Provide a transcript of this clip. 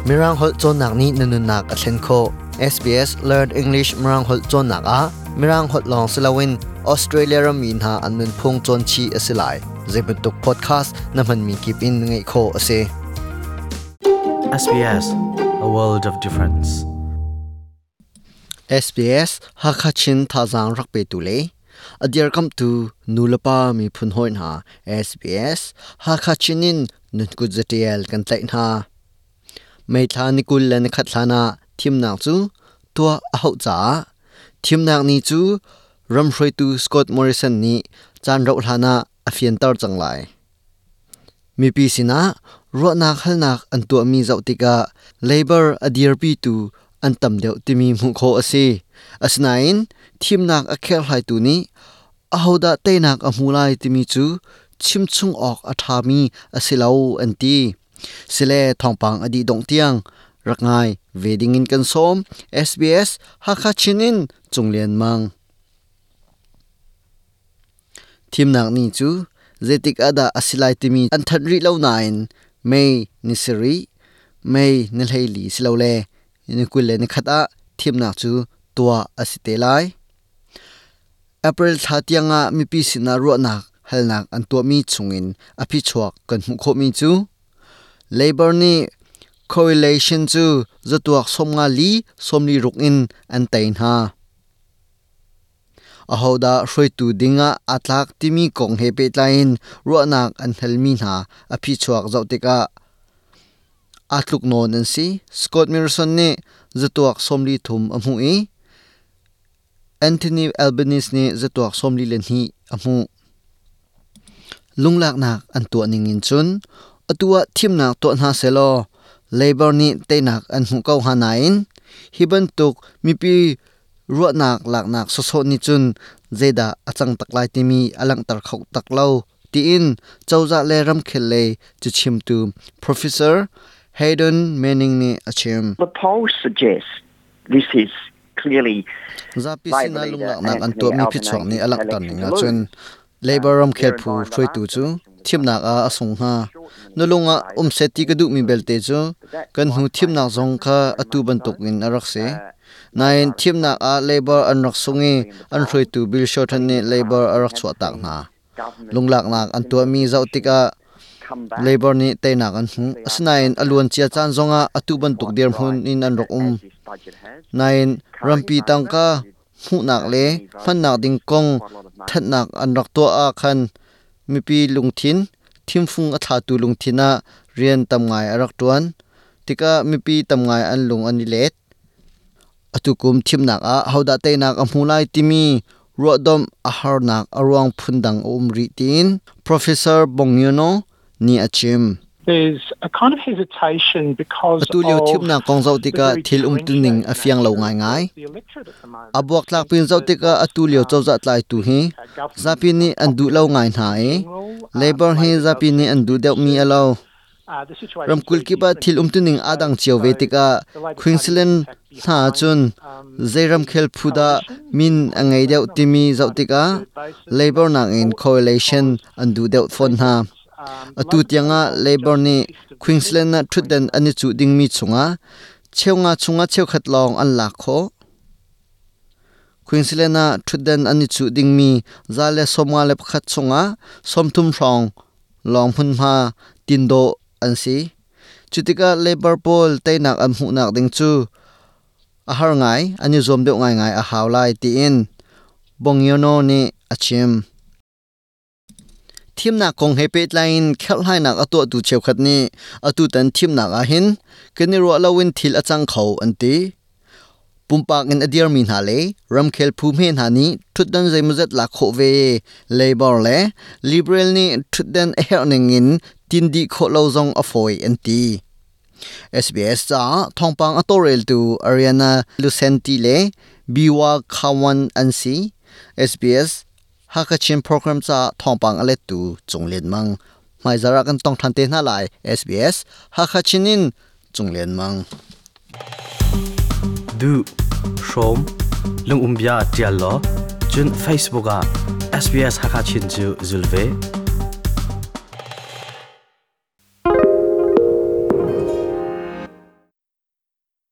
Mirang holh cawnnak nih na nunnak a thlen khawh. SBS Learn English Mirang holh cawnnak ah Mirang holh lawng si loin Australia rammi hna an nunphung cawn chih a si lai. Zeibantuk podcast na hmanmi kip in ngaih khawh a si. SBS, a world of difference. SBS Hakha Chin thazaang rak petu le a dirkamhtu nulepa miphun hawi hna SBS Hakha Chin in nunkut zatial kan tlaih hna. May thla ni 20 le nikhat hlan ah thimnak cu tuah a hauh caah thimnak ni cu ramhruaitu Scott Morrison nih caan rauh hlan ah a fianter cang lai. Mipi sinah ruahnak halnak an tuahmi zoh tikah Labor a dirpitu an tam deuh timi hmuh khawh a si. Asinain thimnak a kherhhlaitu nih ahodah teinak a hmu lai timi cu chimchung awk a ṭhami a si lo an ti. Sile thawngpang a dih dongh tiang rak ngai ve dingin kan sawm. SBS Hakha Chin in Cung Lian Mang. Thimnak ni cu zeitik ah dah a si lai timi an thanh rih lo nain May ni sarih, May ni 14 silole ni 21 ah thimnak cu tuah a si te lai. April thla tiangah mipi sinah ruahnak halnak an tuahmi chungin a phichuak kan hmuh khawhmi cu Labor nih Coalition cu zatuak 54 46 in an tei hna. Ahodah hruaitu dingah aa tlak timi kong he pehtlai in ruahnak an halmi hna a phichuak zoh tikah aa tluk nawn an si. Scott Morrison nih zatuak 43 a hmuh i Anthony Albanese nih zatuak 42 a hmuh. Lunglaknak an tuah ning in cun atu ah thimnak tuah hna sehlaw Labor nih teinak an hmuh ko hnga nain hi bantuk mipi ruahnak laknak sawsawh nih cun zeidah a cang tak lai timi a langhter kho tak lo tiin cozah le ramkhel lei cachimtu Professor Hayden Manning nih a chim. The polls suggest this is clearly Zapi sinah lunglaknak an tuahmi phichuak nih a langhter ning ahcun Labor ramkhel phu hruaitu cu thimnak ah a sung hnga. Na lung ah um seh ti ka duhmi belte cu kan hnu thimnak zong kha atu bantuk in a rak si. Nain thimnak ah Labor an rak sung i an hruaitu Bill Shorten nih Labor a rak chuahtak hna. Lunglaknak an tuahmi zoh tikah Labor nih teinak an hmuh. Asinain a luancia caan zongah atu bantuk dirhmun in an rak um. Nain rampi tangka hmuhnak le hmannak ding kong thanhnak an rak tuah ah khan mipi lungthin thimfung a thlatu lungthin ah rian tam ngai a rak ṭuan tikah mipi tam ngai an lung an i let. Atu kum thimnak ah hodah teinak a hmu lai timi ruahdomh a harnak a ruang phundang a um rih tiin Professor Bongiono nih a chim. There's a kind of hesitation because Atu lio thimnak kong zoh tikah thil umtuning a fiang lo ngaingai. A buaktlak pin zoh tikah atu lio cozah tlaitu hi zapi nih an duh lo ngai hna i Labor hi zapi nih an duh deuhmi a lo. Ramkulh kip ah thil umtuning aa dang cio ve tikah Queensland hna ahcun zei ramkhel phu dah min a ngei deuh timi zoh tikah Labor nakin Coalition an duh deuh fawn hna. Atu tiangah Labor nih Queensland ah ṭhutdan an i cuh dingmi chungah cheunga chungah cheukhat lawng an lak khawh. Queensland ah ṭhutdan an i cuh dingmi 151 chungah 30 hrawng lawng hmunhma tin dawh an si. Cutikah Labor pawl teinak an hmuhnak ding cu a har ngai, an i zuam deuh ngaingai a hau lai tiin Bongiono nih a chim. Thimnak kong he pehtlai in kherhhlainak a tuahtu cheukhat nih atutan thimnak ahhin kan i ruah loin thil a cang kho an ti. Pumpak in a dirmi hna le ramkhel phu hme hna nih ṭhutdan zeimawzat lak khawh ve Labor le Liberal nih ṭhutdan a herh ning in tin dih khawh lo zong a fawi an ti. SBS caah thawngpang a tawlreltu Ariana Lucenti le Biwa Khawan an si. SBS Hakha Chin program caah thawngpang a lettu Cung Lian Mang. Hmaizarh ah kan tong ṭhan te hna lai. SBS Hakha Chin in Cung Lian Mang. Duh, hrawm, lungum bia ṭial law, cun Facebook ah SBS Hakha Chin cu zul ve.